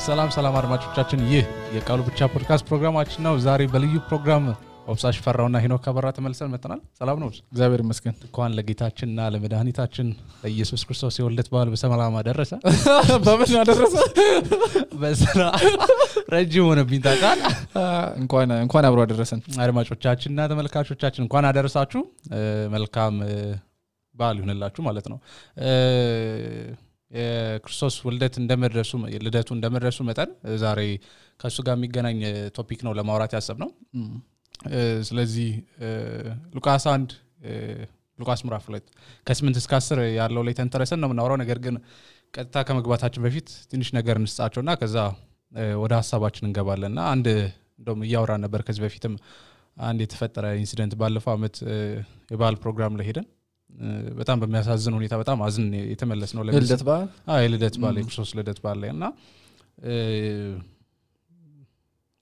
ሰላም አድማጮቻችን ይህ የቃሉ ብቻ ፖድካስት ፕሮግራማችን ነው። ዛሬ በልዩ ፕሮግራም ኦብሳሽ ፈራውና ሄኖክ አበራ ተመልሰን መጥተናል። ሰላም ነው? እግዚአብሔር ይመስገን። እንኳን ለጌታችንና ለመድኃኒታችን ለኢየሱስ ክርስቶስ የወልደት በዓል በሰላም አደረሰ። በምን አደረሰ? በሰላ ረጅም ሆነብኝ ታውቃል። እንኳን አብሮ አደረሰን። አድማጮቻችንና ተመልካቾቻችን እንኳን አደረሳችሁ። መልካም በዓል ይሁንላችሁ ማለት ነው። የክርስቶስ ወልደት እንደመድረሱ ልደቱ እንደመድረሱ መጠን ዛሬ ከሱ ጋር የሚገናኝ ቶፒክ ነው ለማውራት ያሰብነው። ስለዚህ ሉቃስ 1 ሉቃስ ምዕራፍ 2 ከ8 እስከ 10 ያለው ላይ ተንተረሰን ነው የምናወራው። ነገር ግን ቀጥታ ከመግባታችን በፊት ትንሽ ነገር እንስጣቸውና ከዛ ወደ ሐሳባችን እንገባለንና አንድ እንደውም እያወራን ነበር ከዚህ በፊትም አንድ የተፈጠረ ኢንሲደንት ባለፈው አመት የበዓል ፕሮግራም ላይ ሄደን በጣም በሚያሳዝን ሁኔታ በጣም አዝን የተመለስነው ለልደት በዓል ልደት በዓል የክርስቶስ ልደት በዓል ላይና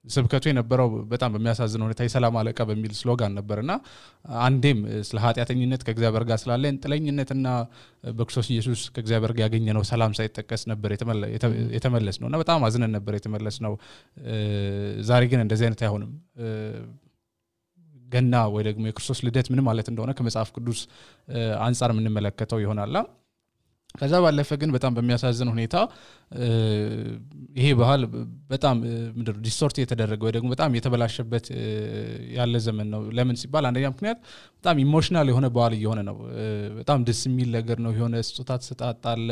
ስብከቱ የነበረው በጣም በሚያሳዝን ሁኔታ የሰላም አለቃ በሚል ስሎጋን ነበርና አንዴም ስለ ኃጢያተኝነት ከእግዚአብሔር ጋር ስላለን ጥለኝነትና በክርስቶስ ኢየሱስ ከእግዚአብሔር ጋር ያገኘነው ሰላም ሳይጠቀስ ነበር የተመለስነውና በጣም አዝነን ነበር የተመለስነው። ዛሬ ግን እንደዚህ አይነት አይሆንም። ገና ወይ ደግሞ የክርስቶስ ልደት ምን ማለት እንደሆነ ከመጽሐፍ ቅዱስ አንፃር ምን መለከተው ይሆናል። ከዛ ባለፈ ግን በጣም በሚያሳዝን ሁኔታ ይሄ ባህል በጣም ምንድነው ዲስቶርት የተደረገ ወይ ደግሞ በጣም የተበላሸበት ያለ ዘመን ነው። ለምን ሲባል አንደኛ ምክንያት በጣም ኢሞሽናል የሆነ ባህል እየሆነ ነው። በጣም ደስ የሚል ነገር ነው። የሆነ ስጦታ ተሰጣጣለ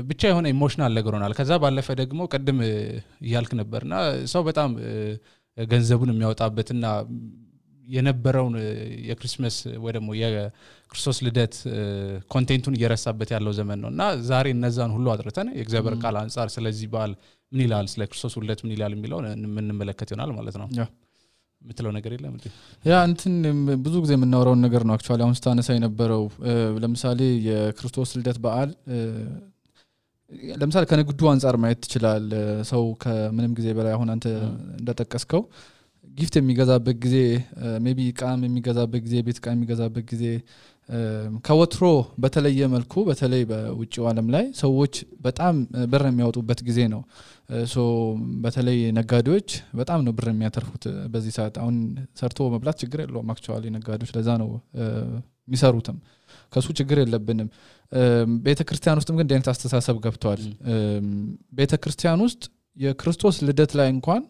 ብቻ የሆነ ኢሞሽናል ነገር ሆናል። ከዛ ባለፈ ደግሞ ቀድም ይያልክ ነበርና ሰው በጣም ገንዘቡን የሚያወጣበትና የነበረውን የክሪስማስ ወይ ደግሞ የክርስቶስ ልደት ኮንቴንቱን እየረሳበት ያለው ዘመን ነውና ዛሬ እነዛን ሁሉ አጥርተን የእግዚአብሔር ቃል አንፃር ስለዚህ በዓል ምን ይላል ስለ ክርስቶስ ልደት ምን ይላል የሚለው እንመለከት ይሆናል ማለት ነው። ምትለው ነገር የለም እንዴ? እንትን ብዙ ጊዜ የምናወራው ነገር ነው። አክቹአሊ አሁን ስታነሳ የነበረው ለምሳሌ የክርስቶስ ልደት በዓል ለምሳሌ ከንግዱ አንፃር ማየት ይችላል። ሰው ከምንም ጊዜ በላይ አሁን አንተ እንደተጠቀስከው ጊፍት የሚገዛበት ጊዜ ሜቢ ቃም የሚገዛበት ጊዜ ቤት ቃም የሚገዛበት ጊዜ ከወትሮ በተለየ መልኩ በተለይ በውጪው ዓለም ላይ ሰዎች በጣም ብር የሚያወጡበት ጊዜ ነው። በተለይ ነጋዴዎች በጣም ነው ብር የሚያተርፉት በዚህ ሰዓት። አሁን ሰርቶ መብላት ችግር የለውም አክቹአሊ ነጋዴዎች ለዛ ነው የሚሰሩትም ከሱ ችግር የለብንም። ቤተክርስቲያን ውስጥም ግን እንደዚህ አስተሳሰብ ገብቷል። ቤተክርስቲያን ውስጥ የክርስቶስ ልደት ላይ እንኳን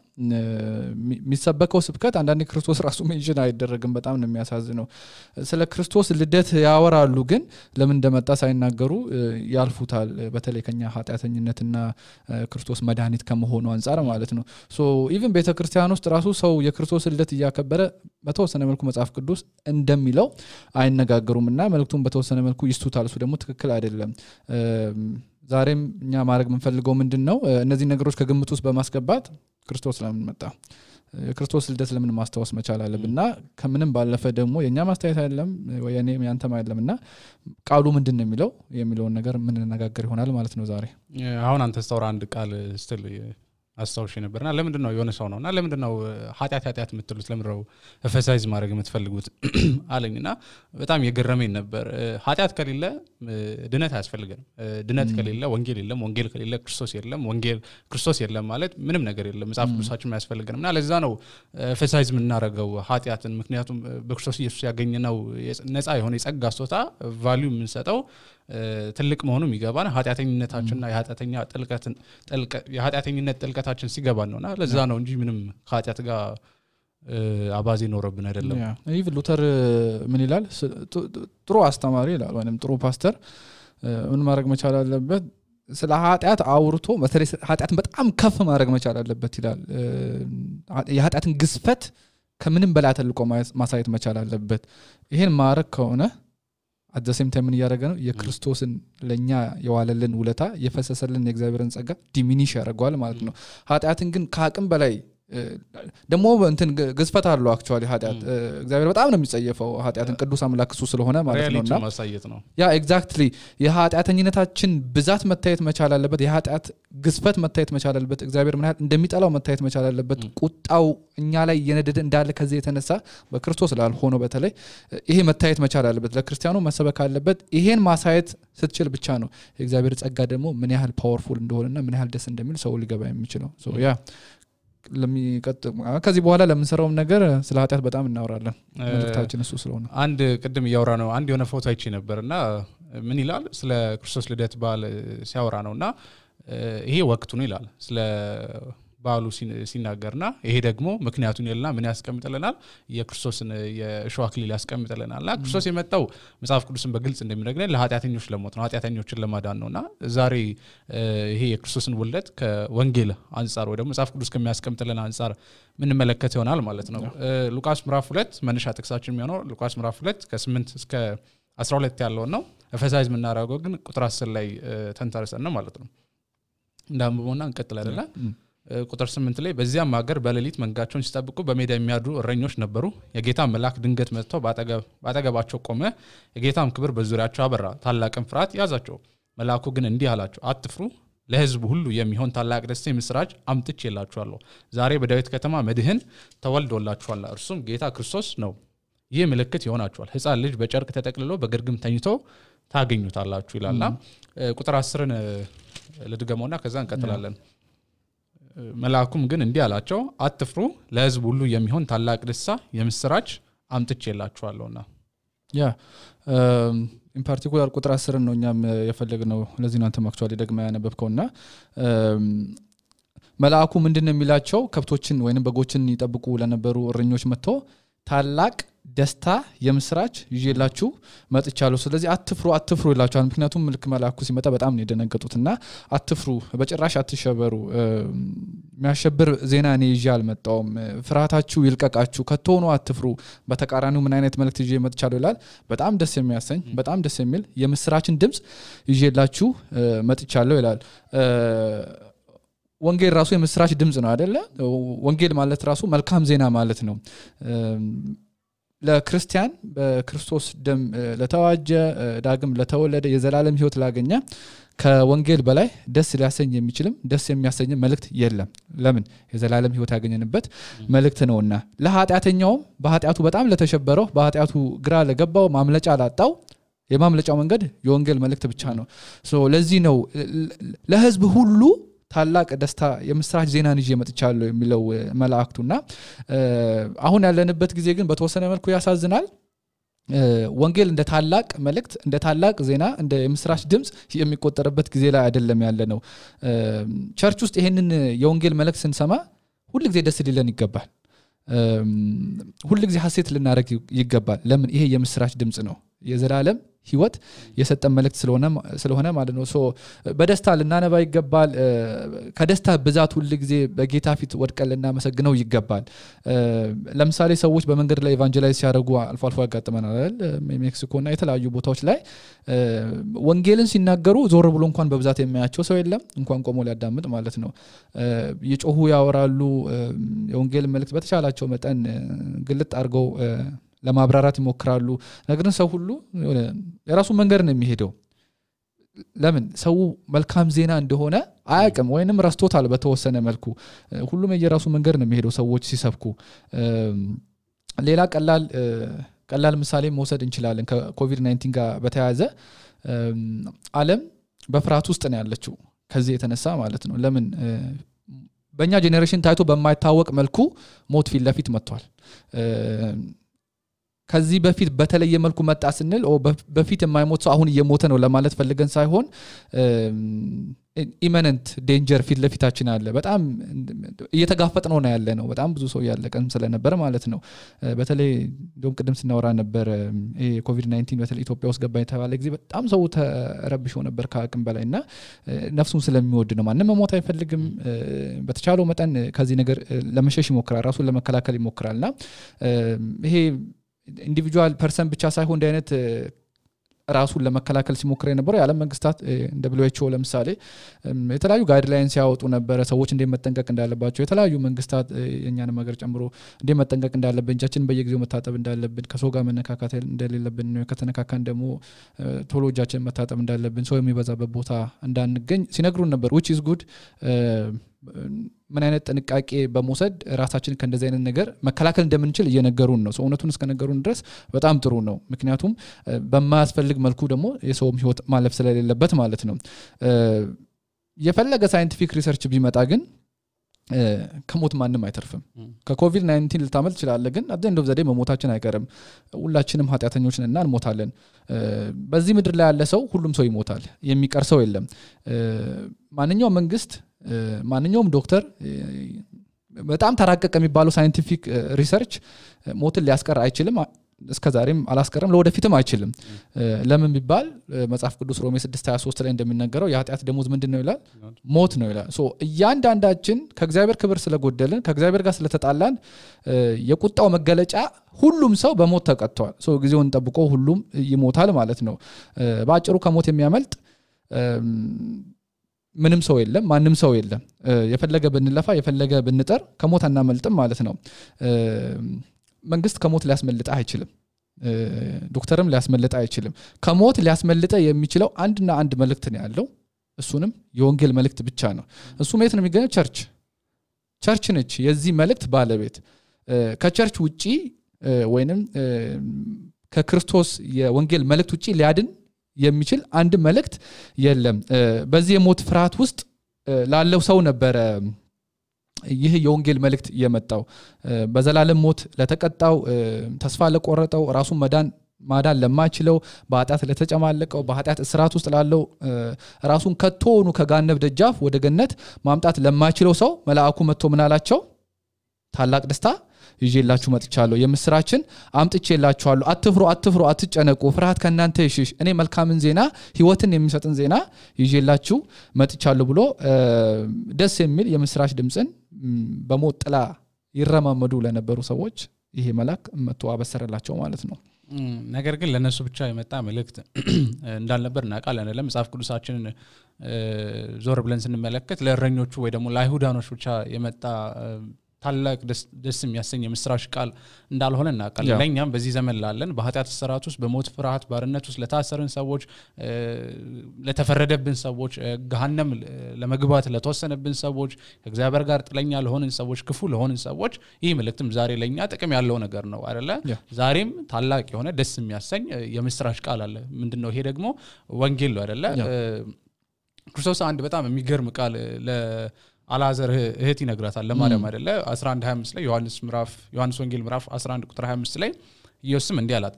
የሚሰበከው ስብከት አንዳንዴ ክርስቶስ ራሱ ሜንሽን አይደረግም። በጣም ነው የሚያሳዝነው። ስለ ክርስቶስ ልደት ያወራሉ ግን ለምን እንደመጣ ሳይናገሩ ያልፉታል። በተለይ ከኛ ኃጢያተኝነትና ክርስቶስ መድኃኒት ከመሆኑ አንፃር ማለት ነው። ኢቭን ቤተክርስቲያን ውስጥ ራሱ ሰው የክርስቶስ ልደት እያከበረ በተወሰነ መልኩ መጽሐፍ ቅዱስ እንደሚለው አይነጋገሩምና መልእክቱን በተወሰነ መልኩ ይስቱታል። እሱ ደግሞ ትክክል አይደለም። ዛሬም እኛ ማድረግ የምንፈልገው ምንድነው እነዚህ ነገሮች ከግምት ውስጥ በማስገባት ክርስቶስ ለምን መጣ የክርስቶስ ልደት ለምን ማስተዋወስ መቻል አለብንና ከምንም ባለፈ ደግሞ የኛ ማስተያየት አይደለም ወይ እኔም ያንተም አይደለምና ቃሉ ምንድነው የሚለውን ነገር ምን እንነጋገር ይሆናል ማለት ነው። ዛሬ አሁን አንተ ስታወራ አንድ ቃል ስትል አስተውሽ ነበርና ለምንድነው የሆነ ሰው ነውና ለምንድነው ኃጢያት የምትሉት ለምንድነው ኤፈሳይዝ ማድረግ የምትፈልጉት አለኝና በጣም የገረመኝ ነበር። ኃጢያት ከሌለ ድነት አያስፈልግም። ድነት ከሌለ ወንጌል የለም። ወንጌል ከሌለ ክርስቶስ የለም። ወንጌል ክርስቶስ የለም ማለት ምንም ነገር የለም። መጽሐፍ ቅዱሳችን ያስፈልገንና ለዛ ነው ኤፈሳይዝ የምናረገው ኃጢያትን። ምክንያቱም በክርስቶስ ኢየሱስ ያገኘነው ነፃ የሆነ የጸጋ ስጦታ ቫልዩ የምንሰጠው ትልቅ መሆኑን ይገባና ኃጢያተኝነታችንና የኃጢያተኝነት ጥልቀታችን ሲገባን ነውና ለዛ ነው እንጂ ምንም ኃጢያት ጋር አባዜ ኖርብን አይደለም። ኢቭን ሉተር ምን ይላል? ጥሩ አስተማሪ ይላል ወይንም ጥሩ ፓስተር ምን ማድረግ መቻል አለበት? ስለ ኃጢያት አውርቶ በተለይ ኃጢያትን በጣም ከፍ ማድረግ መቻል አለበት ይላል። የኃጢያትን ግዝፈት ከምንም በላይ ተልቆ ማሳየት መቻል አለበት። ይሄን ማድረግ ከሆነ at the same time ምን ያደረገ ነው? የክርስቶስን ለኛ የዋለልን ውለታ የፈሰሰልን የእግዚአብሔርን ጸጋ ዲሚኒሽ ያደርጋል ማለት ነው። ኃጢያትን ግን ከአቅም በላይ ደሞ እንትን ግዝፈት አለው አክቹአሊ ኃጢያት እግዚአብሔር በጣም ነው የሚጸየፈው ኃጢያትን ቅዱስ አምላክ እሱ ስለሆነ ማለት ነውና ማሳየት ነው ያ ኤግዛክትሊ የኃጢያተኝነታችን ብዛት መታየት መቻል አለበት የኃጢያት ግዝፈት መታየት መቻል አለበት እግዚአብሔር ምን ያህል እንደሚጠላው መታየት መቻል አለበት ቁጣው እኛ ላይ የነደደ እንዳለ ከዚህ የተነሳ በክርስቶስ ላልሆነው በተለይ ይሄ መታየት መቻል አለበት ለክርስቲያኑ መሰበክ አለበት ይሄን ማሳየት ስትችል ብቻ ነው የእግዚአብሔር ጸጋ ደግሞ ምን ያህል ፓወርፉል እንደሆነና ምን ያህል ደስ እንደሚል ሰው ሊገባ የሚችለው ሶ ያ ከዚህ በኋላ ለምንሰራውም ነገር ስለ ኃጢያት በጣም እናወራለን መልእክታችን እሱ ስለሆነ አንድ ቅድም ያወራ ነው አንድ የሆነ ፎቶ አይቼ ነበርና ምን ይላል ስለ ክርስቶስ ልደት በዓል ሲያወራ ነውና ይሄ ወቅቱ ነው ይላል ስለ በዓሉ ሲናገርና ይሄ ደግሞ ምክንያቱን ይልና ምን ያስቀምጥልናል የክርስቶስን የእሾህ አክሊል ያስቀምጥልናልና ክርስቶስ የመጣው መጽሐፍ ቅዱስን በግልጽ እንደሚነግረን ለኃጢያተኞች ለሞት ነው ኃጢያተኞችን ለማዳን ነውና ዛሬ ይሄ የክርስቶስን ውልደት ከወንጌል አንፃር ወይ ደግሞ መጽሐፍ ቅዱስ ከሚያስቀምጥልን አንፃር ምን መለከት ይሆናል ማለት ነው ሉቃስ ምዕራፍ 2 መነሻ ጥቅሳችን የሚሆነው ሉቃስ ምዕራፍ 2 ከ8 እስከ 12 ያለው ነው ኤፌሳይዝ ምናረጋው ግን ቁጥር 10 ላይ ተንተርሰን ነው ማለት ነው እንዳንብቦና እንቀጥል አይደለ ቁጥር 8 ላይ በዚያም ሀገር በሌሊት መንጋቸውን ሲጠብቁ በሜዳ የሚያድሩ እረኞች ነበሩ የጌታ መልአክ ድንገት መጥቶ ባጠገባቸው ቆመ የጌታም ክብር በዙሪያቸው አበራ ታላቅም ፍርሃት ያዛቸው መልአኩ ግን እንዲህ አላቸው አትፍሩ ለሕዝቡ ሁሉ የሚሆን ታላቅ ደስታ የምስራች አምጥቼላችኋለሁ ዛሬ በዳዊት ከተማ መድህን ተወልዶላችኋል እርሱም ጌታ ክርስቶስ ነው ይህ ምልክት ይሆናችኋል ሕፃን ልጅ በጨርቅ ተጠቅልሎ በግርግም ተኝቶ ታገኙታላችሁ ይላልና ቁጥር 10ን ለድገመውና ከዛ እንቀጥላለን መልአኩም ግን እንዲህ አላቸው አትፍሩ ለሕዝቡ ሁሉ የሚሆን ታላቅ ደስታ የምስራች አምጥቼላችኋለሁና ያ ኢን ፓርቲኩላር ቁጥር 10 ነው እኛም የፈለግነው ለዚህ ነው አንተም አክቹአሊ ደግማ ያነበብከውና መልአኩ ምንድነው የሚላቸው ከብቶችን ወይንም በጎችን ይጠብቁ ለነበሩ እረኞች መጥቶ ታላቅ ደስታ የምስራች ይዤላችሁ መጥቻለሁ ስለዚህ አትፍሩ ይላችኋል ምክንያቱም መልክ መልአኩ ሲመጣ በጣም ነው የደነገጡትና አትፍሩ በጭራሽ አትሸበሩ የሚያሸብር ዜና እኔ ይዤ አልመጣሁም ፍርሃታችሁ ይልቀቃችሁ ከቶኑ አትፍሩ በተቃራኒው ምን አይነት መልእክት ይዤ መጥቻለሁ ይላል በጣም ደስ የሚያሰኝ በጣም ደስ የሚል የምስራችን ድምጽ ይዤላችሁ መጥቻለሁ ይላል ወንጌል ራሱ የምስራች ድምጽ ነው አይደለ ወንጌል ማለት ራሱ መልካም ዜና ማለት ነው ለክርስቲያን በክርስቶስ ደም ለተዋጀ ዳግም ለተወለደ የዘላለም ሕይወት ላገኘ ከወንጌል በላይ ደስ ሊያሰኝ የሚችልም ደስ የሚያሰኝ መልእክት የለም ለምን የዘላለም ሕይወት ያገኘንበት መልእክት ነውና ለኃጢያተኛው በኃጢያቱ በጣም ለተሸበረው በኃጢያቱ ግራ ለገባው ማምለጫ ላጣው የማምለጫው መንገድ የወንጌል መልእክት ብቻ ነው ሶ ለዚህ ነው ለሕዝብ ሁሉ ታላቅ ደስታ የምስራች ዜናን ይዤ መጥቻለሁ የሚለው መልአክቱና አሁን ያለንበት ጊዜ ግን በተወሰነ መልኩ ያሳዝናል ወንጌል እንደ ታላቅ መልእክት እንደ ታላቅ ዜና እንደ የምስራች ድምጽ የሚቆጠርበት ጊዜ ላይ አይደለም ያለነው ቸርች ውስጥ ይሄንን የወንጌል መልእክት ስንሰማ ሁሉ ጊዜ ደስ ሊለን ይገባል ሁሉ ጊዜ ሐሴት ልናረግ ይገባል ለምን ይሄ የምስራች ድምጽ ነው የዘላለም ሕይወት የሰጠን መልእክት ስለሆነ ማለት ነው ሶ በደስታ ልናነባ ይገባል ከደስታ ብዛት ሁሉ ጊዜ በጌታ ፊት ወድቀን ልናመሰግነው ይገባል ለምሳሌ ሰዎች በመንገድ ላይ ኢቫንጀላይዝ ሲያደርጉ አልፎ አልፎ ያጋጥመናል አይደል ሜክሲኮና የተለያዩ ቦታዎች ላይ ወንጌልን ሲናገሩ ዞር ብሎ እንኳን በብዛት የሚያያቸው ሰው የለም እንኳን ቆሞ ሊያዳምጥ ማለት ነው ይጮሁ ያወራሉ የወንጌል መልእክት በተቻላቸው መጠን ግልጥ አድርገው ለማብራራት ይሞክራሉ ነገር ግን ሰው ሁሉ የራሱ መንገድ ነው የሚሄደው ለምን ሰው መልካም ዜና እንደሆነ አያውቅም ወይንም ረስቶታል በተወሰነ መልኩ ሁሉም የራሱ መንገድ ነው የሚሄደው ሰዎች ሲሰብኩ ሌላ ቀላል ምሳሌ መውሰድ እንችላለን ከኮቪድ-19 ጋር በተያያዘ ዓለም በፍርሃት ውስጥ ነው ያለችው ከዚህ የተነሳ ማለት ነው ለምን በእኛ ጄኔሬሽን ታይቶ በማይታወቅ መልኩ ሞት ፊት ለፊት መጥቷል ከዚህ በፊት በተለየ መልኩ መጣ ስንል በፊት የማይሞት ሰው አሁን እየሞተ ነው ለማለት ፈልገን ሳይሆን ኢሚነንት ዴንጀር ፊት ለፊታችን አለ በጣም እየተጋፈጥነው ነው ያለ ነው በጣም ብዙ ሰው ያለቀም ስለነበር ማለት ነው በተለይ እንደውም ቅድም ስናወራ ነበር ይሄ ኮቪድ-19 በተለይ ኢትዮጵያ ውስጥ ገባ የተባለ ጊዜ በጣም ሰው ተረብሾ ነበር ከአቅም በላይና ነፍሱን ስለሚወድ ነው ማንንም መሞት አይፈልግም በተቻለው መጠን ከዚህ ነገር ለመሸሽ ይሞክራል ራሱን ለመከላከል ይሞክራልና ይሄ ኢንዲቪጁዋል ፐርሰን ብቻ ሳይሆን እንደ አይነት ራሱን ለመከላከል ሲሞክር የነበረው የዓለም መንግስታት እንደ WHO ለምሳሌ የተለያዩ ጋይድላይንስ ያወጡ ነበር ሰዎች እንደመጠንቀቅ እንዳለባቸው የተለያዩ መንግስታት የኛንም ሀገር ጨምሮ እንደመጠንቀቅ እንዳለብን እጃችንን በየጊዜው መታጠብ እንዳለብን ከሰው ጋር መነካካት እንደሌለብን ከተነካካን ደግሞ ቶሎ እጃችንን መታጠብ እንዳለብን ሰው የሚበዛበት ቦታ እንዳንገኝ ሲነግሩን ነበር which is good ምን አይነት ጥንቃቄ በመውሰድ ራሳችንን ከእንደዚህ አይነት ነገር መከላከል እንደምንችል እየነገሩን ነው እውነቱን እስከነገሩን ድረስ በጣም ጥሩ ነው ምክንያቱም በማያስፈልግ መልኩ ደግሞ የሰውም ህይወት ማለፍ ስለሌለበት ማለት ነው የፈለገ ሳይንቲፊክ ሪሰርች ቢመጣ ግን ከሞት ማንም አይተርፍም ከኮቪድ-19 ልታመልጥ ይችላል ግን at the end of the day መሞታችን አይቀርም ሁላችንም ኃጢያተኞች ነንና እንሞታለን በዚህ ምድር ላይ ያለ ሰው ሁሉም ሰው ይሞታል የሚቀር ሰው የለም ማንኛውም መንግስት ማንኛውም ዶክተር በጣም ተራቀቀ የሚባለው ሳይንቲፊክ ሪሰርች ሞትን ሊያስቀር አይችልም እስከዛሬም አላስቀረም ለወደፊትም አይችልም ለምን ቢባል መጽሐፍ ቅዱስ ሮሜ 6:23 ላይ እንደሚነገረው የኃጢአት ደሞዝ ምንድነው ይላል ሞት ነው ይላል ሶ እያንዳንዳችን ከእግዚአብሔር ክብር ስለጎደልን ከእግዚአብሔር ጋር ስለተጣላን የቁጣው መገለጫ ሁሉም ሰው በሞት ተቀጥቷል ሶ ጊዜውን ጠብቆ ሁሉም ይሞታል ማለት ነው ባጭሩ ከሞት የሚያመልጥ ምንም ሰው የለም ማንንም ሰው የለም የፈለገ ብንለፋ የፈለገ ብንጠር ከሞት አናመልጥም ማለት ነው መንግስት ከሞት ሊያስመልጥ አይችልም ዶክተርም ሊያስመልጥ አይችልም ከሞት ሊያስመልጥ የሚችለው አንድና አንድ መልእክት ነው ያለው እሱንም የወንጌል መልእክት ብቻ ነው እሱ ማለት ነው የሚገኘው ቸርች ነች የዚህ መልእክት ባለቤት ከቸርች ውጪ ወይንም ከክርስቶስ የወንጌል መልእክት ውጪ ሊያድን የሚችል አንድ መልእክት የለም በዚህ የሞት ፍርሃት ውስጥ ላለው ሰው ነበር ይህ የወንጌል መልእክት የመጣው በዘላለም ሞት ለተቀጣው ተስፋ ለቆረጠው ራሱን ማዳን ለማይችለው በኃጢአት ለተጨማለቀው በኃጢአት እስራት ውስጥ ላለው ራሱን ከቶኑ ከጋነብ ደጃፍ ወደ ገነት ማምጣት ለማይችለው ሰው መልአኩ መጥቶ ምን አላቸው ታላቅ ደስታ ይዤላችሁ መጥቻለሁ የምስራችን አምጥቼላችኋለሁ አትፍሩ አትጨነቁ ፍርሃት ከናንተ ይሽሽ እኔ መልካምን ዜና ህይወትን የሚሰጥን ዜና ይዤላችሁ መጥቻለሁ ብሎ ደስ የሚል የምስራች ድምጽን በሞት ጥላ ይረማመዱ ለነበሩ ሰዎች ይሄ መልአክ መጥቶ አበሰረላቸው ማለት ነው ነገር ግን ለነሱ ብቻ የመጣ መልእክት እንዳልነበር እናውቃለን አይደለም መጽሐፍ ቅዱሳችንን ዞር ብለን ስንመለከት ለእረኞቹ ወይ ደግሞ ለአይሁዳኖች ብቻ የመጣ ታላቅ ደስ የሚያሰኝ የምስራች ቃል እንዳልሆነ እናውቃለን ለኛም በዚህ ዘመን ላለን በኃጢአት እስራት ውስጥ በሞት ፍርሃት ባርነት ውስጥ ለታሰርን ሰዎች ለተፈረደብን ሰዎች ገሃነም ለመግባት ለተወሰነብን ሰዎች ከእግዚአብሔር ጋር ጥለኛ ለሆንን ሰዎች ክፉ ለሆንን ሰዎች ይህ መልእክትም ዛሬ ለኛ ጥቅም ያለው ነገር ነው አይደለ ዛሬም ታላቅ የሆነ ደስ የሚያሰኝ የምስራች ቃል አለ ምንድነው ይሄ ደግሞ ወንጌል ነው አይደለ ክርስቶስ አንድ በጣም የሚገርም ቃል አላዘር እህት ይነግራታል ለማርያም አይደለ 11:25 ላይ ዮሐንስ ወንጌል ምዕራፍ 11 ቁጥር 25 ላይ ኢየሱስም እንዲህ አላት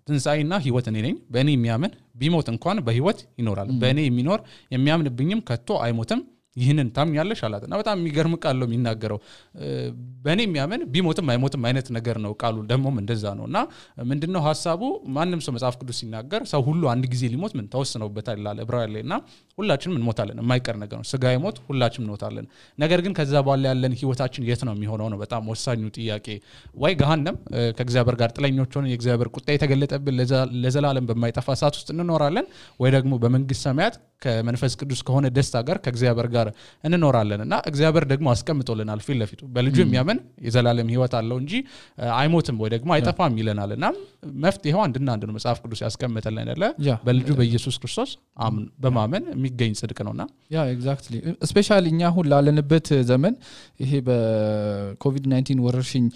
ትንሳኤና ህይወት እኔ ነኝ በእኔ የሚያምን ቢሞት እንኳን በህይወት ይኖራል በእኔ የሚኖር የሚያምንብኝም ከቶ አይሞትም ይህንን ታምኛለሽ አላትና በጣም የሚገርም ቃል ነው የሚናገረው በእኔ የሚያምን ቢሞትም አይሞትም አይነት ነገር ነው ቃሉ ደሞም እንደዛ ነውና ምንድነው ሐሳቡ ማንንም ሰው መጽሐፍ ቅዱስ ሲናገር ሰው ሁሉ አንድ ጊዜ ሊሞት ምን ተወስነውበታል ይላል ዕብራውያን ላይና ሁላችንም እንሞታለን የማይቀር ነገር ነው ስጋይ ሞት ሁላችንም እንሞታለን ነገር ግን ከዛ በኋላ ያለን ህይወታችን የት ነው የሚሆነው ነው በጣም ወሳኙ ጥያቄ ወይ ገሃነም ከእግዚአብሔር ጋር ጥለኞች ሆነን የእግዚአብሔር ቁጣ የተገለጠብን ለዘላለም በማይጠፋ እሳት ውስጥ እንኖራለን ወይ ደግሞ በመንግስት ሰማያት ከመንፈስ ቅዱስ ከሆነ ደስታ ጋር ከእግዚአብሔር ጋር እንኖራለንና እግዚአብሔር ደግሞ አስቀምጦልናል ፊት ለፊቱ በልጁ የሚያምን የዘላለም ህይወት አለው እንጂ አይሞትም ወይ ደግሞ አይጠፋም ይለናልና መፍትሄው አንድና አንድ ነው መጽሐፍ ቅዱስ ያስቀምጠልን አይደለ በልጁ በኢየሱስ ክርስቶስ በማመን የሚገኝ ጽድቅ ነውና ያ ኤግዛክትሊ ስፔሻሊ እኛ ሁሉ ላለንበት ዘመን ይሄ በኮቪድ-19 ወረርሽኝ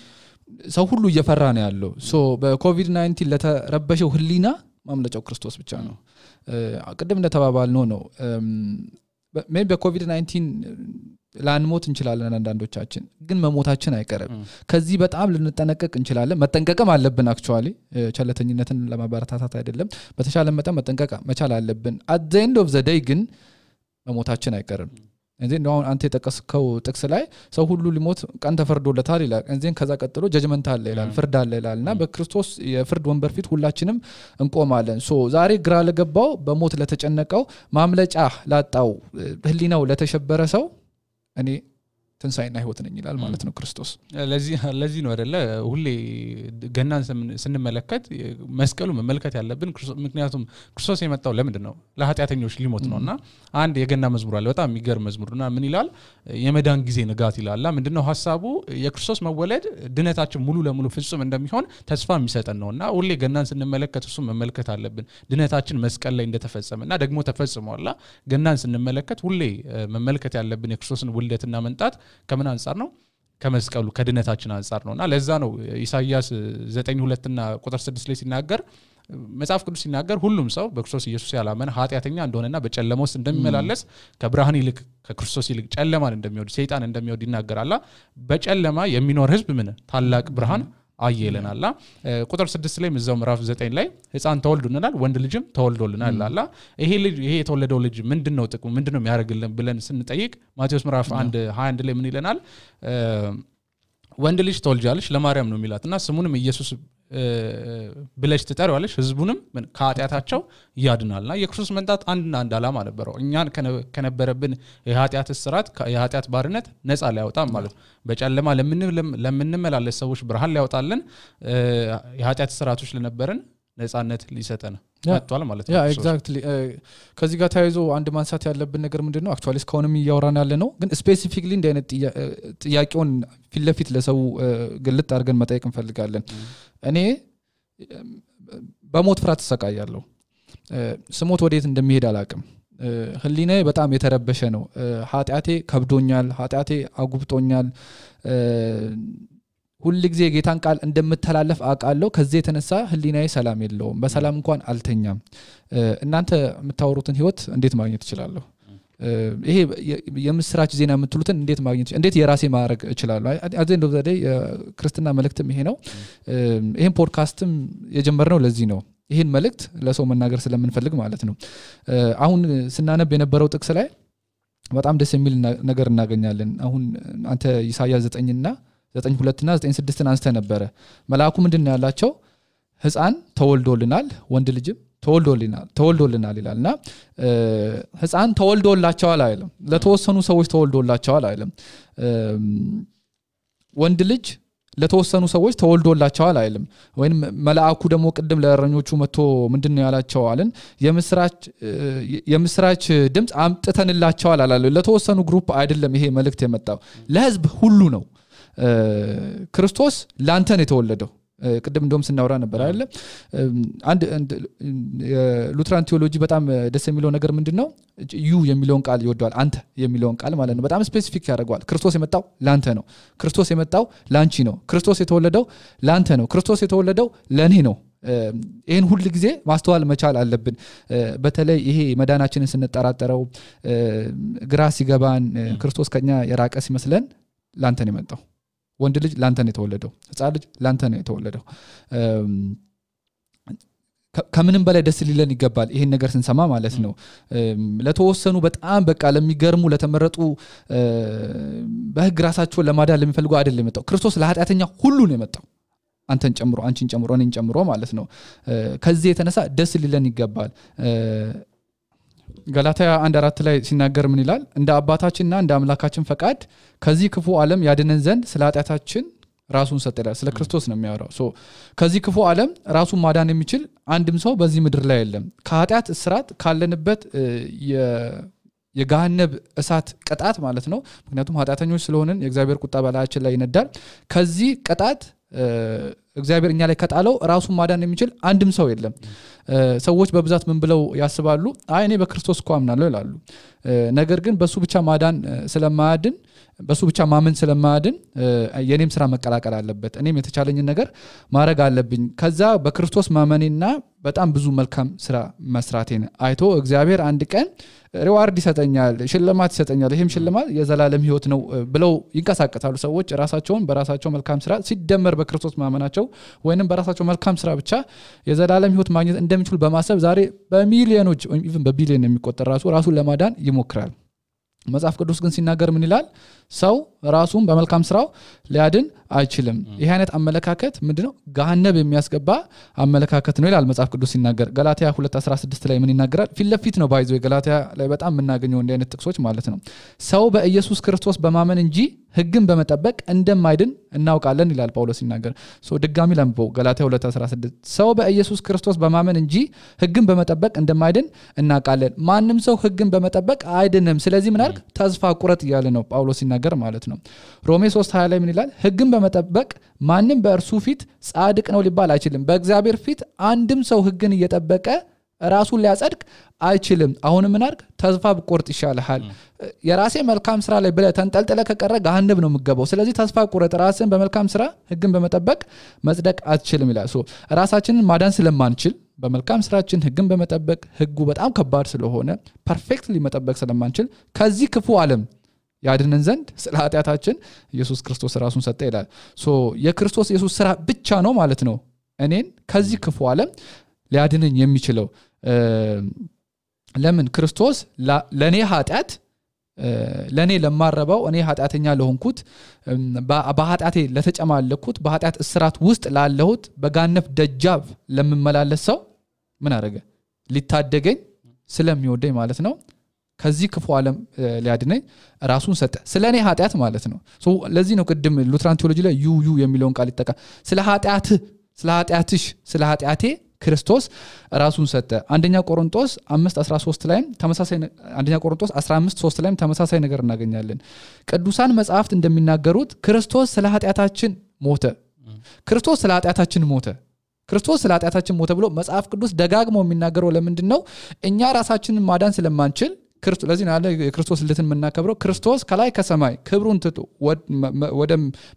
ሰው ሁሉ እየፈራ ነው ያለው ሶ በኮቪድ-19 ለተረበሸው ህሊና ማምለጫው ክርስቶስ ብቻ ነው ቅድም እንደተባባልነው ነው ሜቢ በኮቪድ-19 ላንሞት እንችላለን አንዳንዶቻችን ግን መሞታችን አይቀርም ከዚህ በጣም ልንጠነቀቅ እንችላለን መጠንቀቅም አለብን አክቹአሊ ቸለተኝነትን ለማበረታታት አይደለም በተሻለ መጠን መጠንቀቅ መቻል አለብን at the end of the day ግን መሞታችን አይቀርም እንዴ ነው አንተ የተጠቀስከው ጥቅስ ላይ ሰው ሁሉ ሊሞት ቀን ተፈርዶለታል ይላል እንዴን ከዛ ቀጥሎ ጀጅመንት አለ ይላል ፍርድ አለ ይላልና በክርስቶስ የፍርድ ወንበር ፊት ሁላችንም እንቆማለን ሶ ዛሬ ግራ ለገባው በሞት ለተጨነቀው ማምለጫ ላጣው ህሊናው ለተሸበረ ሰው እኔ ትንሳኤና ህይወት ነኝ ይላል ማለት ነው ክርስቶስ ለዚህ ነው አይደለ ሁሌ ገናን ስንመለከት መስቀሉ መመልከት ያለብን ምክንያቱም ክርስቶስ የመጣው ለምንድነው ለኃጢአተኞች ሊሞት ነውና አንድ የገና መዝሙር አለ በጣም የሚገርም መዝሙርና ምን ይላል የመዳን ጊዜ ንጋት ይላል ምንድነው ሐሳቡ የክርስቶስ መወለድ ድነታችን ሙሉ ለሙሉ ፍጹም እንደሚሆን ተስፋ የሚሰጠን ነውና ሁሌ ገናን ስንመለከት እሱ መመልከት አለብን ድነታችን መስቀል ላይ እንደተፈጸመና ደግሞ ተፈጽሟልና ገናን ስንመለከት ሁሌ መመልከት ያለብን የክርስቶስን ውልደትና መንጣት ከምን አንፃር ነው ከመስቀሉ ከድነታችን አንፃር ነውና ለዛ ነው ኢሳይያስ 9:2 እና ቁጥር 6 ላይ ሲናገር መጽሐፍ ቅዱስ ሲናገር ሁሉም ሰው በክርስቶስ ኢየሱስ ያላመነ ኃጢአተኛ እንደሆነና በጨለማ ውስጥ እንደሚመላለስ ከብርሃን ይልቅ ከክርስቶስ ይልቅ ጨለማን እንደሚወድ ሰይጣን እንደሚወድ ይናገራልና በጨለማ የሚኖር ህዝብ ምን ታላቅ ብርሃን አየለናልና ቁጥር 6 ላይ ምዛው ምዕራፍ 9 ላይ ህፃን ተወልዶልናል ወንድ ልጅም ተወልዶልናል አላ ይሄ የተወለደው ልጅ ምንድነው ጥቅሙ ምንድነው የሚያደርግልን ብለን ስንጠይቅ ማቴዎስ ምዕራፍ 1:21 ላይ ምን ይለናል ወንድ ልጅ ተወልጃለሽ ለማርያም ነው የሚላትና ስሙንም ኢየሱስ ብለሽ ትጠሪዋለሽ ህዝቡንም ከኃጢአታቸው ያድናልና የክርስቶስ መንጣት አንድ ዓላማ ነበረው እኛን ከነበረብን የኃጢአት እስራት የኃጢአት ባርነት ነፃ ሊያወጣን ማለት በጨለማ ለምንመላለስ ሰዎች ብርሃን ሊያወጣልን የኃጢአት እስራቶች ለነበረን ነፃነት ሊሰጠን መጥቷል ማለት ነው ኤግዛክትሊ ከዚህ ጋር ታይዞ አንድ ማንሳት ያለብን ነገር ምንድነው አክቹአሊ ስካውንም ያወራን ያለ ነው ግን ስፔሲፊክሊ እንደ አይነት ጥያቄውን ፊትለፊት ለሰው ግልጥ አድርገን መጠየቅ እንፈልጋለን እኔ በሞት ፍርሃት ተሰቃያለሁ ስሞት ወዴት እንደሚሄድ አላቅም ህሊናዬ በጣም የተረበሸ ነው ኃጢአቴ ከብዶኛል ኃጢአቴ አጉብጦኛል ሁሉ ጊዜ ጌታን ቃል እንደምተላለፍ አቃለው ከዚህ የተነሳ ህሊናዬ ሰላም የለውም በሰላም እንኳን አልተኛም እናንተ የምታወሩትን ህይወት እንዴት ማግኘት እችላለሁ ይሄ የምስራች ዜና የምትሉትን እንዴት ማግኘት እንዴት የራሴ ማድረግ እችላለሁ አዘንዶ ዘዴ ክርስትና መልእክትም ይሄ ነው ይሄን ፖድካስትም የጀመርነው ለዚህ ነው ይሄን መልእክት ለሰው መናገር ስለምንፈልግ ማለት ነው አሁን ስናነብ የነበረው ጥቅስ ላይ በጣም ደስ የሚል ነገር እናገኛለን አሁን አንተ ኢሳይያስ 9:2 እና 9:6 አንስተ ነበር መልአኩ ምንድነው ያላቸው ህፃን ተወልዶልናል ወንድ ልጅም ተወልዶልናል ይላልና ህፃን ተወልዶላቸዋል አይልም ለተወሰኑ ሰዎች ተወልዶላቸዋል አይልም ወንድ ልጅ ለተወሰኑ ሰዎች ተወልዶላቸዋል አይልም ወይንም መልአኩ ደግሞ ቀደም ለእረኞቹ መጥቶ ምንድነው ያላቸው አለን የምስራች ድምጽ አምጥተንላቸዋል አላለ ለተወሰኑ ግሩፕ አይደለም ይሄ መልእክት የመጣው ለህዝብ ሁሉ ነው ክርስቶስ ላንተ ነው የተወለደው ቀደም እንደውም ስናወራ ነበር አይደል አንድ ሉትራን ቴዎሎጂ በጣም ደስ የሚለው ነገር ምንድነው ዩ የሚለውን ቃል ይወደዋል አንተ የሚለውን ቃል ማለት ነው በጣም ስፔሲፊክ ያደርጋል ክርስቶስ የመጣው ላንተ ነው ክርስቶስ የመጣው ላንቺ ነው ክርስቶስ የተወለደው ላንተ ነው ክርስቶስ የተወለደው ለኔ ነው ይሄን ሁሉ ጊዜ ማስተዋል መቻል አለብን በተለይ ይሄ መዳናችንን ስንጠራጠረው ግራ ሲገባን ክርስቶስ ከኛ የራቀ ሲመስለን ላንተ ነው የመጣው ወንድ ልጅ ላንተ ነው የተወለደው ህፃን ልጅ ላንተ ነው የተወለደው ከምንም በላይ ደስ ሊለን ይገባል ይሄን ነገር ስንሰማ ማለት ነው ለተወሰኑ በጣም በቃ ለሚገርሙ ለተመረጡ በህግ ራሳቸውን ለማዳን ለሚፈልጉ አይደለም የመጣው ክርስቶስ ለኃጢአተኛ ሁሉ ነው የመጣው አንተን ጨምሮ አንቺን ጨምሮ እኔን ጨምሮ ማለት ነው ከዚህ የተነሳ ደስ ሊለን ይገባል ገላትያ 1:4 ላይ ሲናገር ምን ይላል እንደ አባታችንና እንደ አምላካችን ፈቃድ ከዚህ ክፉ ዓለም ያድነን ዘንድ ስለ ኃጢአታችን ራሱን ሰጠ ስለ ክርስቶስ ነው የሚያወራው ከዚህ ክፉ ዓለም ራሱን ማዳን የሚችል አንድም ሰው በዚህ ምድር ላይ የለም ከኃጢአት እስራት ካለንበት የገሃነብ እሳት ቅጣት ማለት ነው ምክንያቱም ኃጢአተኞች ስለሆነን የእግዚአብሔር ቁጣ በላያችን ላይ ይነዳል ከዚህ ቅጣት እግዚአብሔር እኛ ላይ ከጣለው ራሱን ማዳን የሚችል አንድም ሰው የለም ሰዎች በብዛት ምን ብለው ያስባሉ እኔ በክርስቶስ እኮ አምናለሁ ይላሉ ነገር ግን በሱ ብቻ ማዳን ስለማያድን በሱ ብቻ ማመን ስለማያድን የኔም ስራ መቀላቀል አለበት እኔም የተቻለኝን ነገር ማድረግ አለብኝ ከዛ በክርስቶስ ማመኔና በጣም ብዙ መልካም ስራ መስራቴን አይቶ እግዚአብሔር አንድ ቀን ሪዋርድ ይሰጠኛል ሽልማት ይሰጠኛል ይሄም ሽልማት የዘላለም ህይወት ነው ብለው ይንቀሳቀሳሉ ሰዎች ራሳቸውን በራሳቸው መልካም ስራ ሲደመር በክርስቶስ ማመናቸው ወይንም በራሳቸው መልካም ስራ ብቻ የዘላለም ህይወት ማግኘት እንደሚችሉ በማሰብ ዛሬ በሚሊዮኖች ኢቭን በቢሊዮን የሚቆጠር ራሱን ለማዳን ይሞክራል መጽሐፍ ቅዱስ ግን ሲናገር ምን ይላል ሰው ራሱን በመልካም ስራው ሊያድን አይችልም ይሄ አይነት አመለካከት ምንድነው ገሃነብ የሚያስገባ አመለካከት ነው ይላል መጽሐፍ ቅዱስ ሲናገር ገላትያ 2:16 ላይ ምን ይናገራል ፊትለፊት ነው ባይዘው ገላትያ ላይ በጣም የምናገኘው እንደ አይነት ጥቅሶች ማለት ነው ሰው በኢየሱስ ክርስቶስ በማመን እንጂ ህግን በመጠበቅ እንደማይድን እናውቃለን ይላል ጳውሎስ ሲናገር ድጋሚ ለምበው ገላትያ 2:16 ሰው በኢየሱስ ክርስቶስ በማመን እንጂ ህግን በመጠበቅ እንደማይድን እናውቃለን ማንም ሰው ህግን በመጠበቅ አይድንም ስለዚህ ምን አርግ ተስፋ ቁረጥ ይያለ ነው ጳውሎስ ሲናገር ማለት ነው ሮሜ 3:20 ላይ ምን ይላል ህግን በመጠበቅ ማንም በእርሱ ፊት ጻድቅ ነው ሊባል አይችልም በእግዚአብሔር ፊት አንድም ሰው ህግን እየጠበቀ ራሱን ሊያጸድቅ አይችልም አሁን ምን አርግ ተስፋ ቁርጥ ይሻልሃል የራሴ መልካም ስራ ላይ ብለ ተንጠልጥለ ከቀረ ገሃነብ ነው የምገባው ስለዚህ ተስፋ ቁርጥ ራስን በመልካም ስራ ህግን በመጠበቅ መጽደቅ አትችልም ይላል ራሳችንን ማዳን ስለማንችል በመልካም ስራችን ህግን በመጠበቅ ህጉ በጣም ከባድ ስለሆነ ፐርፌክትሊ መጠበቅ ስለማንችል ከዚህ ክፉ ዓለም ያድነን ዘንድ ስለ ኃጢያታችን ኢየሱስ ክርስቶስ ራሱን ሰጠ ይላል የክርስቶስ ኢየሱስ ስራ ብቻ ነው ማለት ነው እኔን ከዚህ ክፉ ዓለም ሊያድነኝ የሚችለው ለምን ክርስቶስ ለኔ ኃጢያት ለኔ ለማረባው እኔ ኃጢያተኛ ለሆንኩት በኃጢያቴ ለተጨማለኩት በኃጢያት እስራት ውስጥ ላለሁት በጋነፍ ደጃፍ ለምመላለስ ሰው ምን አረገ ሊታደገኝ ስለሚወደኝ ማለት ነው ከዚህ ክፉ ዓለም ሊያድነኝ ራሱን ሰጠ ስለኔ ኃጢያት ማለት ነው ለዚህ ነው ቅድም ሉትራን ቴዎሎጂ ላይ ዩ የሚለውን ቃል ይጠቃ ስለ ኃጢያትሽ ስለ ኃጢያቴ ክርስቶስ ራሱን ሰጠ አንደኛ ቆሮንቶስ 5:13 ላይ ተመሳሳይ አንደኛ ቆሮንቶስ 15:3 ላይ ተመሳሳይ ነገር እናገኛለን ቅዱሳን መጻሕፍት እንደሚናገሩት ክርስቶስ ስለ ኃጢያታችን ሞተ ክርስቶስ ስለ ኃጢያታችን ሞተ ብሎ መጽሐፍ ቅዱስ ደጋግሞ የሚናገረው ለምንድነው እኛ ራሳችንን ማዳን ስለማንችል ክርስቶስ ለዚህ ነው የክርስቶስ ልደትን መናከብረው ክርስቶስ ከላይ ከሰማይ ክብሩን ትቶ ወደ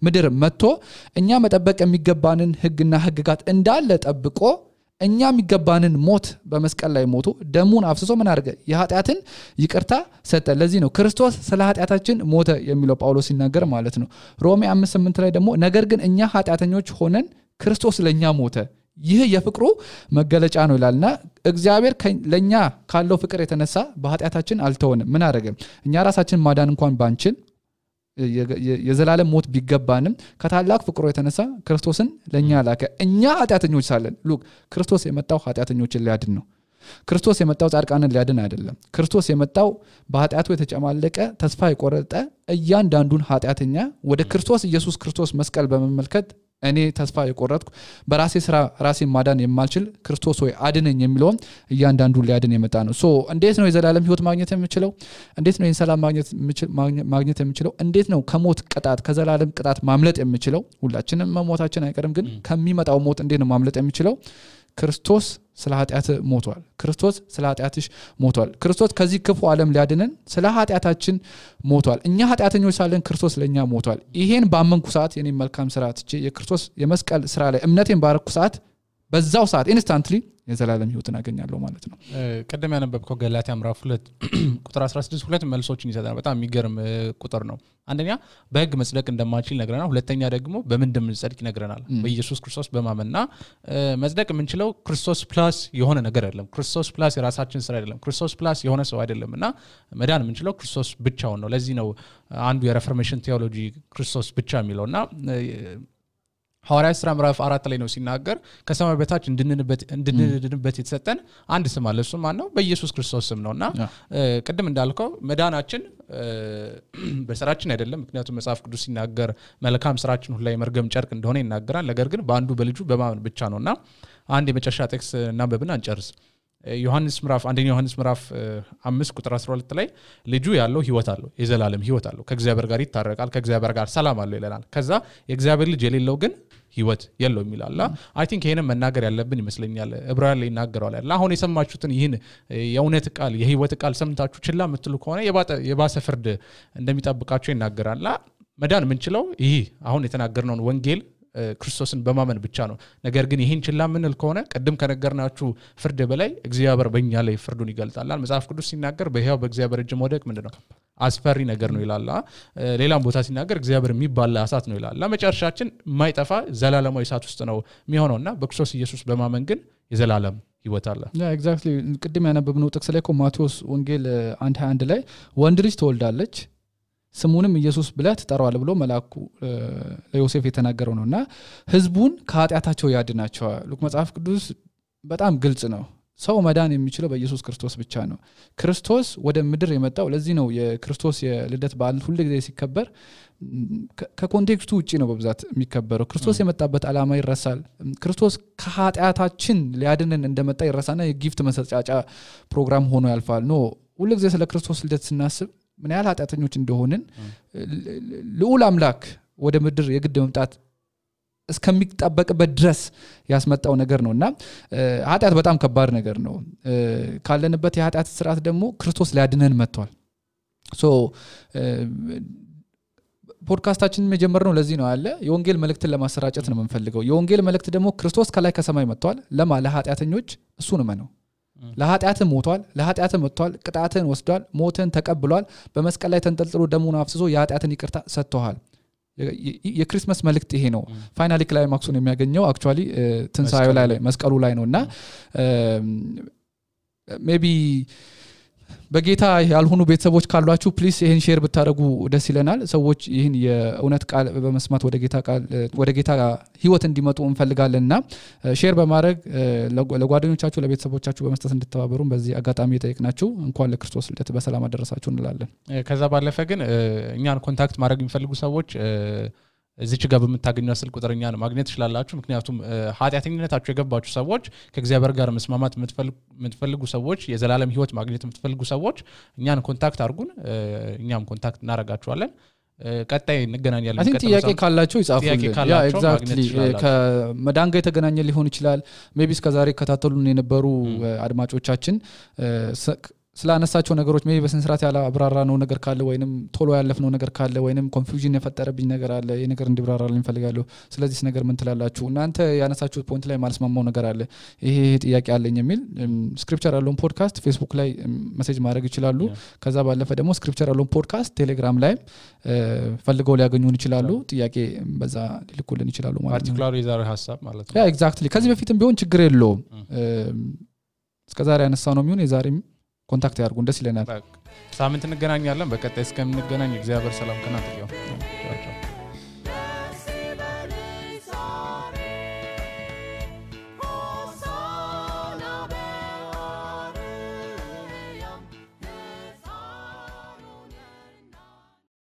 ምድር መጥቶ እኛ መጠበቅ የሚገባንን ህግና ህግጋት እንዳለ ጠብቆ እኛ የሚገባንን ሞት በመስቀል ላይ ሞቶ ደሙን አፍስሶ ምን አድርገ የኃጢያትን ይቅርታ ሰጠ ለዚህ ነው ክርስቶስ ስለ ኃጢያታችን ሞተ የሚለው ጳውሎስ ሲናገር ማለት ነው ሮሜ 5:8 ላይ ደግሞ ነገር ግን እኛ ኃጢያተኞች ሆነን ክርስቶስ ለኛ ሞተ ይህ የፍቅሩ መገለጫ ነው ይላልና እግዚአብሔር ለኛ ካለው ፍቅር የተነሳ በኃጢያታችን አልተወንም ምን አደረገ እኛ ራሳችን ማዳን እንኳን ባንችል የዘላለም ሞት ቢገባንም ከታላቅ ፍቅሩ የተነሳ ክርስቶስን ለኛ ላከ እኛ ኃጢያተኞች ሳለን ሉክ ክርስቶስ የመጣው ኃጢያተኞችን ሊያድን ነው ክርስቶስ የመጣው ጻድቃንን ሊያድን አይደለም ክርስቶስ የመጣው በኃጢያቱ የተጨማለቀ ተስፋ የቆረጠ እያንዳንዱን ኃጢያተኛ ወደ ክርስቶስ ኢየሱስ ክርስቶስ መስቀል በመመልከት እኔ ተስፋ የቆረጥኩ በራሴ ስራ ራሴን ማዳን የማልችል ክርስቶስ ሆይ አድነኝ የሚለው እያንዳንዱ ሊያድን የመጣ ነው እንዴት ነው የዘላለም ህይወት ማግኘት የምችለው እንዴት ነው የሰላም ማግኘት የምችለው እንዴት ነው ከሞት ቅጣት ከዘላለም ቅጣት ማምለጥ የምችለው ሁላችንም መሞታችን አይቀርም ግን ከሚመጣው ሞት እንዴት ነው ማምለጥ የምችለው ክርስቶስ ስለ ኃጢያት ሞቷል ክርስቶስ ስለ ኃጢያትሽ ሞቷል ክርስቶስ ከዚህ ክፉ ዓለም ሊያድነን ስለ ኃጢያታችን ሞቷል እኛ ኃጢያተኞች ሳለን ክርስቶስ ለኛ ሞቷል ይሄን ባመንኩ ሰዓት የኔ መልካም ስራ ትቼ የክርስቶስ የመስቀል ስራ ላይ እምነቴን ባረኩ ሰዓት በዛው ሰዓት ኢንስታንትሊ የዘላለም ህይወትን አገኛለሁ ማለት ነው ቀደም ያነበብከው ገላትያ ምዕራፍ 2 ቁጥር 16 ሁለት መልሶችን ይሰጣል በጣም የሚገርም ቁጥር ነው አንደኛ በህግ መጽደቅ እንደማንችል ይነግረናል ሁለተኛ ደግሞ በምን እንደምንጸድቅ ይነግረናል በኢየሱስ ክርስቶስ በማመንና መጽደቅ የምንችለው ክርስቶስ ፕላስ የሆነ ነገር አይደለም ክርስቶስ ፕላስ የራሳችን ስራ አይደለም ክርስቶስ ፕላስ የሆነ ሰው አይደለምና መዳን የምንችለው ክርስቶስ ብቻውን ነው ለዚህ ነው አንዱ የሪፎርሜሽን ቴዎሎጂ ክርስቶስ ብቻ የሚለውና ሐዋርያት ሥራ ምዕራፍ 4 ላይ ነው ሲናገር ከሰማይ በታች እንድንድንበት የተሰጠን አንድ ስም አለ እሱ ማን ነው በኢየሱስ ክርስቶስ ስም ነውና ቅድም እንዳልከው መዳናችን በስራችን አይደለም ምክንያቱም መጽሐፍ ቅዱስ ሲናገር መልካም ስራችን ሁሉ ላይ መርገም ጨርቅ እንደሆነ ይናገራል ነገር ግን በአንዱ በልጁ በማመን ብቻ ነውና አንድ የመጨረሻ ቴክስት እናንብብና እንጨርስ አንደኛ ዮሐንስ ምዕራፍ 5 ቁጥር 12 ላይ ልጁ ያለው ህይወት አለው የዘላለም ህይወት አለው ከእግዚአብሔር ጋር ይታረቃል ከእግዚአብሔር ጋር ሰላም አለው ይላል ከዛ የእግዚአብሔር ልጅ የሌለው ግን ህይወት የለውም ይላል አይ ቲንክ ይሄንን መናገር ያለብን ይመስለኛል ዕብራውያን ላይ ይናገራል አይደል አሁን የሰማችሁትን ይህን የእውነት ቃል የህይወት ቃል ሰምታችሁ ችላ የምትሉ ከሆነ የባሰ ፍርድ እንደሚጠብቃችሁ ይናገራል መዳን ምንችለው ይሄ አሁን የተናገርነውን ወንጌል ክርስቶስን በማመን ብቻ ነው ነገር ግን ይሄን ችላ ምንል ከሆነ ቀደም ከነገርናችሁ ፍርድ በላይ እግዚአብሔር በእኛ ላይ ፍርዱን ይገልጣል መጽሐፍ ቅዱስ ሲናገር በሕያው በእግዚአብሔር እጅ መውደቅ ምንድነው አስፈሪ ነገር ነው ይላል ሌላም ቦታ ሲናገር እግዚአብሔር የሚባል እሳት ነው ይላል መጨረሻችን የማይጠፋ ዘላለማዊ እሳት ውስጥ ነው የሚሆነውና በክርስቶስ ኢየሱስ በማመን ግን የዘላለም ህይወት አለ ኤግዛክትሊ ቅድም ያነበብነው ጥቅስ ላይ ማቴዎስ ወንጌል 1:21 ላይ ወንድ ልጅ ትወልዳለች ስሙንም ኢየሱስ ብለህ ትጠራዋለህ ብሎ መልአኩ ለዮሴፍ የተናገረው ነውና ህዝቡን ከኃጢአታቸው ያድናቸዋል ሉክ መጽሐፍ ቅዱስ በጣም ግልጽ ነው ሰው መዳን የሚችለው በኢየሱስ ክርስቶስ ብቻ ነው ክርስቶስ ወደ ምድር የመጣው ለዚህ ነው የክርስቶስ የልደት በዓል ሁሉ ጊዜ ሲከበር ከኮንቴክስቱ ውጪ ነው በብዛት የሚከበረው ክርስቶስ የመጣበት ዓላማ ይረሳል ክርስቶስ ከኃጢአታችን ሊያድነን እንደመጣ ይረሳና የጊፍት መሰጫጫ ፕሮግራም ሆኖ ያልፋል ኖ ሁሉ ጊዜ ስለ ክርስቶስ ልደት ስናስብ ምን ያህል ኃጢአተኞች እንደሆንን ልዑል አምላክ ወደ ምድር የግድ መምጣት እስከሚጣበቅበት ድረስ ያስመጣው ነገር ነውና ኃጢአት በጣም ከባድ ነገር ነው ካለንበት የኃጢአት ስርዓት ደግሞ ክርስቶስ ሊያድነን መጥቷል ሶ ፖድካስታችንን መጀመርነው ለዚህ ነው አለ የወንጌል መልእክትን ለማሰራጨት ነው የምንፈልገው የወንጌል መልእክት ደግሞ ክርስቶስ ከላይ ከሰማይ መጥቷል ለኃጢአተኞች እሱን ነው ለኃጢአት ሞቷል ለኃጢአት መጥቷል ቅጣትን ወስዷል ሞትን ተቀብሏል በመስቀል ላይ ተንጠልጥሎ ደሙን አፍስሶ የኃጢአትን ይቅርታ ሰጥቷል የክሪስማስ መልእክት ይሄ ነው ፋይናሊ ክላይማክሱን የሚያገኘው አክቹአሊ ትንሳኤው ላይ መስቀሉ ላይ ነውና ሜቢ በጌታ ያልሆኑ ቤተሰቦች ካሏችሁ ፕሊስ ይሄን ሼር ብታደርጉ ደስ ይለናል ሰዎች ይሄን የእውነት ቃል በመስማት ወደ ጌታ ህይወት እንዲመጡ እንፈልጋለንና ሼር በማድረግ ለጓደኞቻችሁ ለቤተሰቦቻችሁ በመስጠት እንድትተባበሩን በዚህ አጋጣሚ እየጠየቅናችሁ እንኳን ለክርስቶስ ልደት በሰላም አደረሳችሁ እንላለን ከዛ ባለፈ ግን እኛን ኮንታክት ማድረግ የሚፈልጉ ሰዎች እዚች ጋር በመታገኙ ስልክ ቁጥርኛ ነው ማግኘት ይችላልላችሁ ምክንያቱም ኃጢአተኝነታችሁ የገባችሁ ሰዎች ከእግዚአብሔር ጋር መስማማት የምትፈልጉ ሰዎች የዘላለም ህይወት ማግኘት የምትፈልጉ ሰዎች እኛን ኮንታክት አድርጉን እኛም ኮንታክት እናረጋችኋለን ቀጣይ እንገናኛለን አይ ቲንክ ጥያቄ ካላችሁ ይጻፉልን ያ ኤግዛክትሊ ከመዳን ጋር የተገናኘ ሊሆን ይችላል ሜቢ እስከዛሬ ከታተሉን የነበሩ አድማጮቻችን ስላነሳቸው ነገሮች ሜቢ በስንስራት ያለ አብራራ ነው ነገር ካለ ወይንም ቶሎ ያለፍነው ነገር ካለ ወይንም ኮንፊውዥን የፈጠረብኝ ነገር አለ ይሄ ነገር እንዲብራራልኝ ፈልጋለሁ ስለዚህ ነገር ምን ትላላችሁ እናንተ ያነሳችሁት ፖይንት ላይ ማልስማማው ነገር አለ ይሄ ጥያቄ አለኝ የሚል ስክሪፕቸር ያለውን ፖድካስት ፌስቡክ ላይ ሜሴጅ ማድረግ ይችላሉ ከዛ ባለፈ ደግሞ ስክሪፕቸር ያለውን ፖድካስት ቴሌግራም ላይ ፈልገው ሊያገኙን ይችላሉ ጥያቄ በዛ ሊልኩልን ይችላሉ ማለት ነው ፓርቲኩላር የዛሬ ሐሳብ ማለት ነው ያ ኤግዛክትሊ ከዚህ በፊትም ቢሆን ችግር የለውም እስከዛሬ ያነሳው ነው የሚሆን የዛሬም ኮንታክት ያርጉን ደስ ይለናል ሳምንት እንገናኛለን በቀጣይ እስከምንገናኝ እግዚአብሔር ሰላም ከናንተ ይሁን